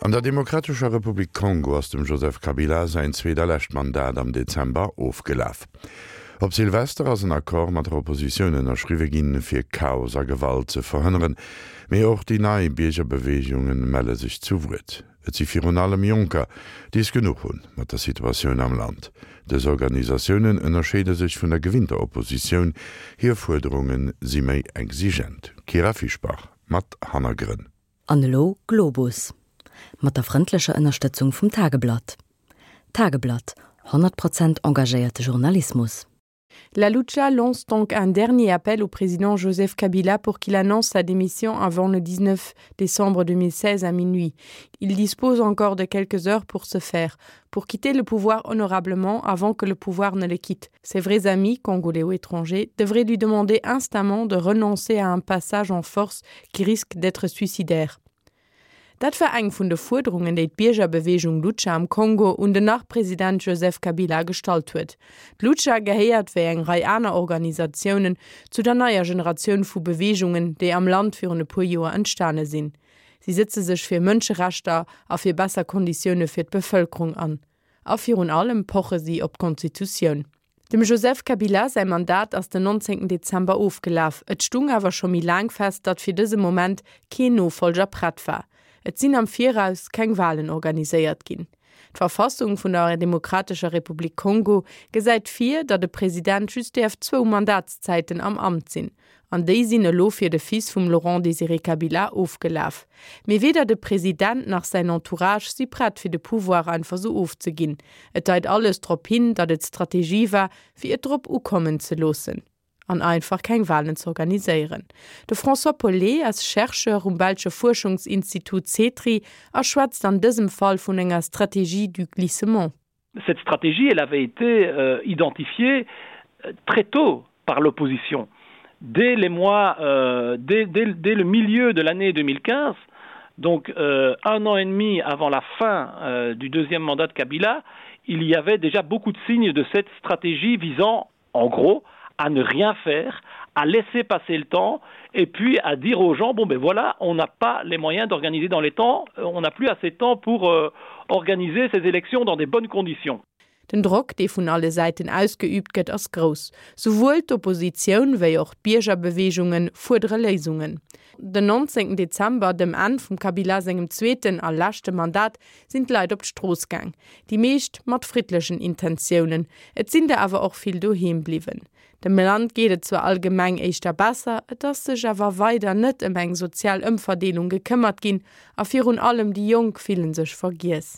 An der Demokratescher Republik Kongo ass dem Joseph Kabila säin zweet a lescht Mandat am Dezember ofgelaf. Op Silvester ass en Accord mat der Oppositioun ënnerschriwwe ginn, fir Chaos a Gewalt ze verhënneren. Mee och déi nei Biergerbeweegunge melle sech zu Wuert. Et si virun allem Jonker, déi es genuch hunn mat der Situatioun am Land. Dës Organisatiounen ënnerscheede sech vun der gewinnter Oppositioun, hir Fuerderunge si méi exigent. Kyra Fischbach mat Hannergrënn. An elo Globus. Mat der frëndlecher Ënnerstëtzung vum Tageblatt. Tageblatt, 100 Prozent engagéierte Journalismus. La Lucha lance donc un dernier appel au président Joseph Kabila pour qu'il annonce sa démission avant le 19 décembre 2016 à minuit. Il dispose encore de quelques heures pour se faire, pour quitter le pouvoir honorablement avant que le pouvoir ne le quitte. Ses vrais amis, congolais ou étrangers, devraient lui demander instamment de renoncer à un passage en force qui risque d'être suicidaire. Dat war eng vun de Fuerderungen, déi d'Biergerbeweegung Lucha am Kongo un den Nach-President Joseph Kabila gestallt huet. D'Lucha gehéiert, wéi eng Rei aner Organisatiounen, zu der neier Generatioun vu Beweegungen, déi am Land virun e puer Joer entstane sinn. Si sëtze sech fir Mënscherechter a fir besser Konditioune fir d'Bevëlkerung an. A virun allem poche si op d'Konstitutioun. Dem Joseph Kabila säi Mandat ass den 19 Dezember ofgelaf. Et stung awer scho méi laang fest, datt fir dëse Moment keen Nofollger prett war. Et sinn am Viraus keng Walen organiséiert ginn. D'Verfassung vun der Demokratescher Republik Kongo gesäit vir, datt e President just däerf zwou Mandatszäiten am Amt sinn. An déi sinn elo fir de Fils vum Laurent Désiré Kabila ofgelaf. Mee weder de President nach säin Entourage si prett fir de Pouvoir einfach sou ofzeginn. Et deit alles drop hin, datt et Strategie war, fir et drop ukommen ze loossen an einfach keng Walen z'organiséieren. De François Pollet ass Chercheur um belsche Fuerschungsinstitut CETRI a schwätzt an dësem Fall vun enger Stratégie du glissement. Cette stratégie, elle avait été euh, identifiée euh, très tôt par l'opposition. Dès les mois euh, dès, dès, dès le milieu de l'année 2015, donc euh, un an et demi avant la fin euh, du deuxième mandat de Kabila, il y avait déjà beaucoup de signes de cette stratégie visant en gros à ne rien faire, à laisser passer le temps et puis à dire aux gens bon ben voilà, on n'a pas les moyens d'organiser dans les temps, euh, on n'a plus assez de temps pour euh, organiser ces élections dans des bonnes conditions. Den Drock, dee vun alle Säiten ausgeüübt gëtt, ass grouss. Souwuel d'Oppositioun wéi och d'Biergerbeweegunge fuerdere Léisungen. Den 19 Dezember, dem Enn vum Kabila sengem zweeten a leschte Mandat, sinn d'Leit op d'Strooss gaang. Déi meescht mat friddlechen Intentiounen. Et sinn der awer och vill doheem bliwwen. Dem Land geet et zwar allgemeng éischter besser, et ass sech awer weider net ëm eng sozial Ëmverdeelung gekëmmert ginn a virun allem déi Jonk fillen sech vergiess.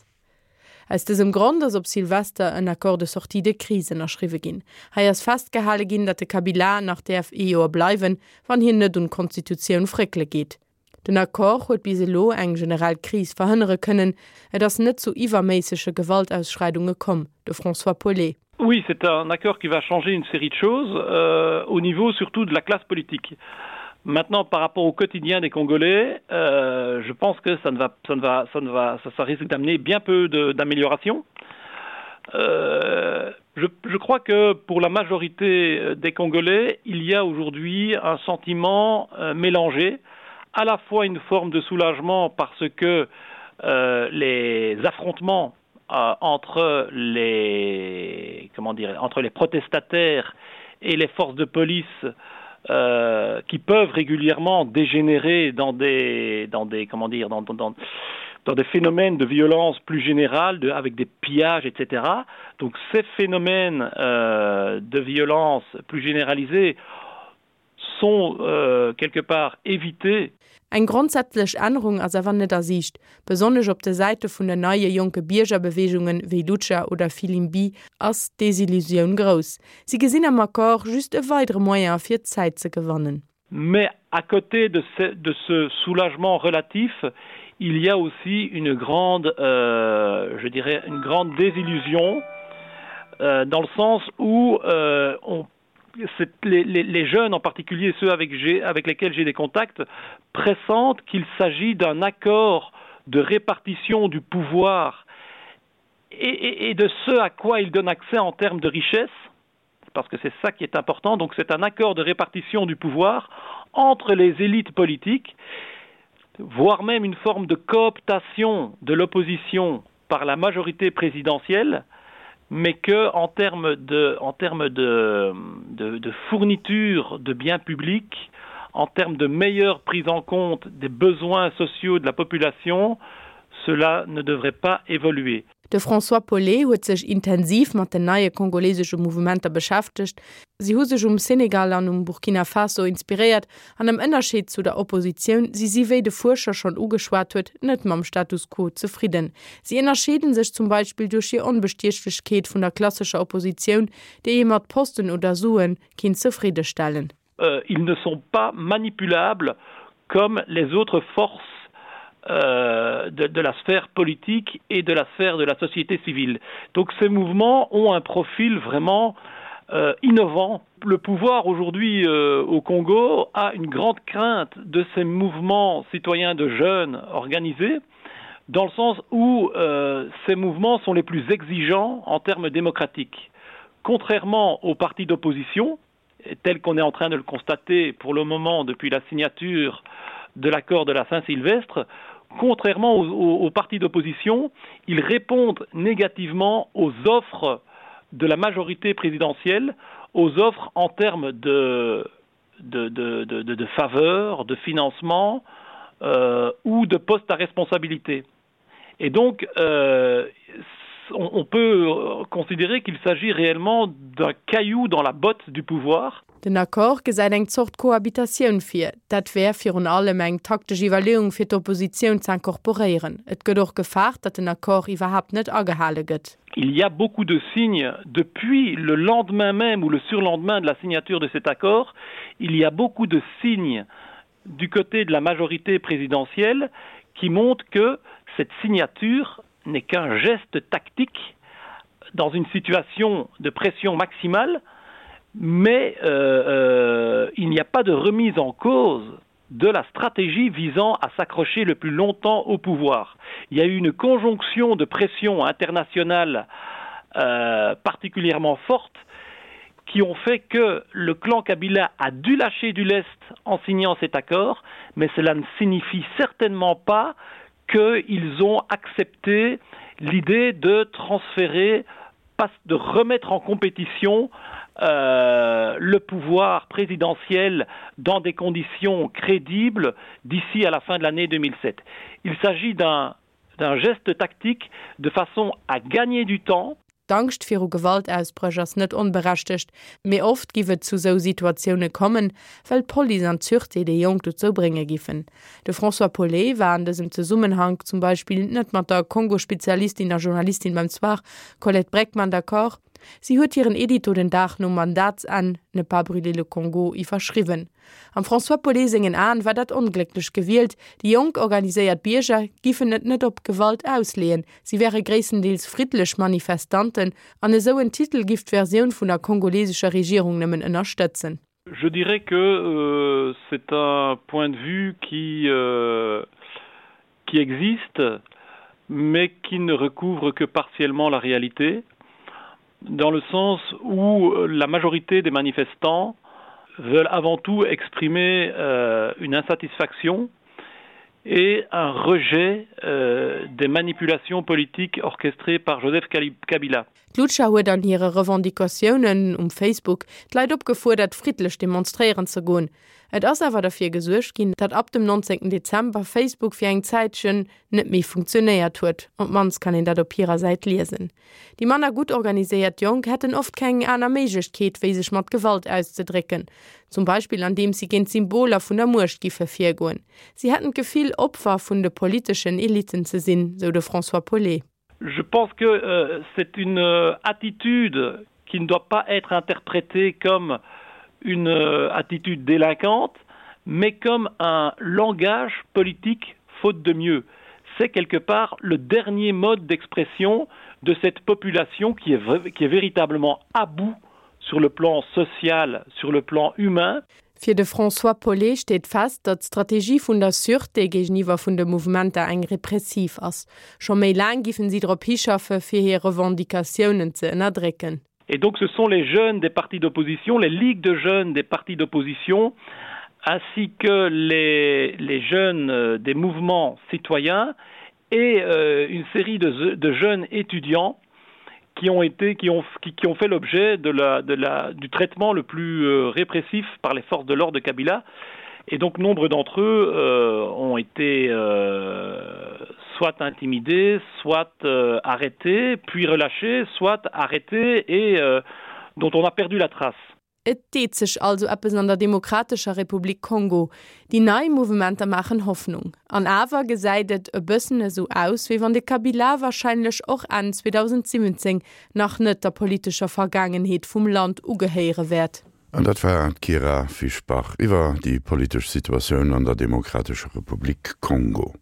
Aus dësem Grond ass op Silvester en Accord de sortie de crise ënnerschriwwe ginn. Hei ass festgehale ginn, datt de Kabila nach däerf ee Joer bleiwen, wann hien net un d'Konstitutioun fréckele geet. Den Accord huet bis elo eng generell Kris verhënnere kënnen. Et ass net zu iwwerméissege Gewaltausschreidunge komm. De François Paulet. Oui, c'est un accord qui va changer une série de choses euh, au niveau surtout de la classe politique. Maintenant, par rapport au quotidien des Congolais, euh, je pense que ça ne va, ça ne va, ça ne va, ça, ça risque d'amener bien peu d'amélioration. Euh, je, je crois que pour la majorité euh, des Congolais, il y a aujourd'hui un sentiment euh, mélangé, à la fois une forme de soulagement parce que euh, les affrontements euh, entre les comment dire entre les protestataires et les forces de police euh, qui peuvent régulièrement dégénérer dans des dans des comment dire dans, dans, dans, dans des phénomènes de violence plus générale de, avec des pillages etc donc ces phénomènes euh, de violence plus généralisés sont euh, quelque part évités. Eng grondsätzlech Ännerung ass awer net a Siicht. Besonnesch op de Säite vun den neie jonke Biergerbeweegungen, wéi Lucha oder Filimbi, ass d'Desillusioun grouss. Si gesinn am Accord just e weidere Moyen fir Zäit ze gewannen. Mais à côté de ce, de ce soulagement relatif, il y a aussi une grande euh, je dirais une grande désillusion euh, dans le sens où euh, on les, les, les jeunes en particulier ceux avec, avec lesquels j'ai des contacts pressentent qu'il s'agit d'un accord de répartition du pouvoir et, et, et de ce à quoi il donne accès en termes de richesse parce que c'est ça qui est important donc c'est un accord de répartition du pouvoir entre les élites politiques. voire même une forme de cooptation de l'opposition par la majorité présidentielle, mais que en termes de, en termes de, de, de fourniture de biens publics, en termes de meilleure prise en compte des besoins sociaux de la population, cela ne devrait pas évoluer. De François Paulet huet sech intensiv mat den neie kongolesesche Mouvementer beschäftegt. Si hu sech um Senegal an um Burkina Faso inspiréiert an am Ënnerscheed zu der Oppositioun si si, wéi de Fuerscher schonn ugeschwat huet, net mam Status quo zefridden. Si ënnerscheede sech zum Beispill duerch hir Onbestiechlechkeet vun der klassescher Oppositioun, déi ee mat Posten oder Sue kinnt zefriddestellen. Euh, ils ne sont pas manipulables comme les autres forces euh, de, de la sphère politique et de la sphère de la société civile. Donc ces mouvements ont un profil vraiment euh, innovant. Le pouvoir aujourd'hui euh, au Congo a une grande crainte de ces mouvements citoyens de jeunes organisés dans le sens où euh, ces mouvements sont les plus exigeants en termes démocratiques. Contrairement aux partis d'opposition, tel qu'on est en train de le constater pour le moment depuis la signature de l'accord de la Saint-Sylvestre, contrairement aux, aux, aux partis d'opposition, ils répondent négativement aux offres de la majorité présidentielle, aux offres en termes de, de, de, de, de, de faveurs, de financement euh, ou de postes à responsabilité. Et donc euh, on, on peut considérer qu'il s'agit réellement d'un caillou dans la botte du pouvoir. Den Accord gesäit eng Zort Cohabitatioun vir. Dat wär virun allem eng taktesch Iwwerleeung fir d'Oppositioun z'incorporéieren. Et gëtt och gefaart, datt den Accord iwwerhaapt net agehale gëtt. Il y a beaucoup de signes depuis le lendemain même ou le surlendemain de la signature de cet accord, il y a beaucoup de signes du côté de la majorité présidentielle qui montrent que cette signature n'est qu'un geste tactique dans une situation de pression maximale, mais euh, euh, il n'y a pas de remise en cause de la stratégie visant à s'accrocher le plus longtemps au pouvoir. Il y a eu une conjonction de pression internationale euh, particulièrement forte qui ont fait que le clan Kabila a dû lâcher du lest en signant cet accord, mais cela ne signifie certainement pas qu'ils ont accepté l'idée de transférer de remettre en compétition euh, le pouvoir présidentiel dans des conditions crédibles d'ici à la fin de l'année 2007. Il s'agit d'un geste tactique de façon à gagner du temps. D'Angscht viru Gewaltausbréch ass net onberechtegt, mee oft giff et zu sou Situatioune kommen, well d'Police an d'Sûreté déi Jonk dozou brénge giffen. De François Paulet war an dësem Zesummenhank zum Beispill net mat der Kongo-Spezialistin a Journalistin beim Soir, Colette Braeckman, d'accord. Si huet hiren Edito den Dag nom Mandatsenn, Ne pas brûler le Congo, iwwerschriwwen. Am François Paulet sengen Aen war dat onglécklech gewielt, déi jonk organiséiert Bierger giffen et net op Gewalt ausleeën, si wäre gréisstendeels friddlech Manifestanten an esou en Titel giff d'Versioun vun der kongolesescher Regierung nëmmen ënnerstëtzen. Je dirais que euh, c'est un point de vue qui, euh, qui existe, mais qui ne recouvre que partiellement la réalité, dans le sens où la majorité des manifestants veulent avant tout exprimer euh, une insatisfaction et un rejet euh, des manipulations politiques orchestrées par Joseph Kabila. D'Lucha huet an hire Revendicatiounen um Facebook d'Leit opgefuerdert, friddlech demonstréieren ze goen. Et ass awer derfir gesuergt ginn, datt ab dem 19 Dezember Facebook fir eng Zäitchen net méi funktionéiert huet, op d'mannst kann een dat op hirer Säit liesen. Déi manner gutt organiséiert Jonk hätten oft keng aner Méiglechkeet, wéi sech mat Gewalt auszedrécken, zum Beispill andeems si géint d'Symboler vun der Muecht giffe virgoen. Si hätten d'Gefill, Opfer vun de politeschen Elitten ze sinn, sou de François Paulet. Je pense que euh, c'est une euh, attitude qui ne doit pas être interprétée comme une euh, attitude délinquante, mais comme un langage politique faute de mieux. C'est quelque part le dernier mode d'expression de cette population qui est, qui est véritablement à bout sur le plan social, sur le plan humain. Fir de François Paulet steet fest, datt d'Strategie vun der Sûreté géigeniwwer vun de Mouvementer eng repressiv ass. Scho méi laang giffen si drop hischaffe fir hir Revendicatiounen ze ënnerdrécken. Et donc ce sont les jeunes des partis d'opposition, les ligues de jeunes des partis d'opposition. ainsi que les, les jeunes euh, des mouvements citoyens et euh, une série de, de jeunes étudiants qui ont été qui ont qui, qui ont fait l'objet de la de la du traitement le plus euh, répressif par les forces de l'ordre de Kabila et donc nombre d'entre eux euh, ont été euh, soit intimidés soit euh, arrêtés puis relâchés soit arrêtés et euh, dont on a perdu la trace. Et deet sech also eppes an der Demokratescher Republik Kongo. Déi nei Mouvementer maachen Hoffnung. An awer gesäit et e bëssen esou aus, wéi wann de Kabila warscheinlech och Enn 2017 nach net der politescher Vergaangenheet vum Land ugehéiere wäert. An dat war d'Kyra Fischbach iwwer déi politesch Situatioun an der Demokratescher Republik Kongo.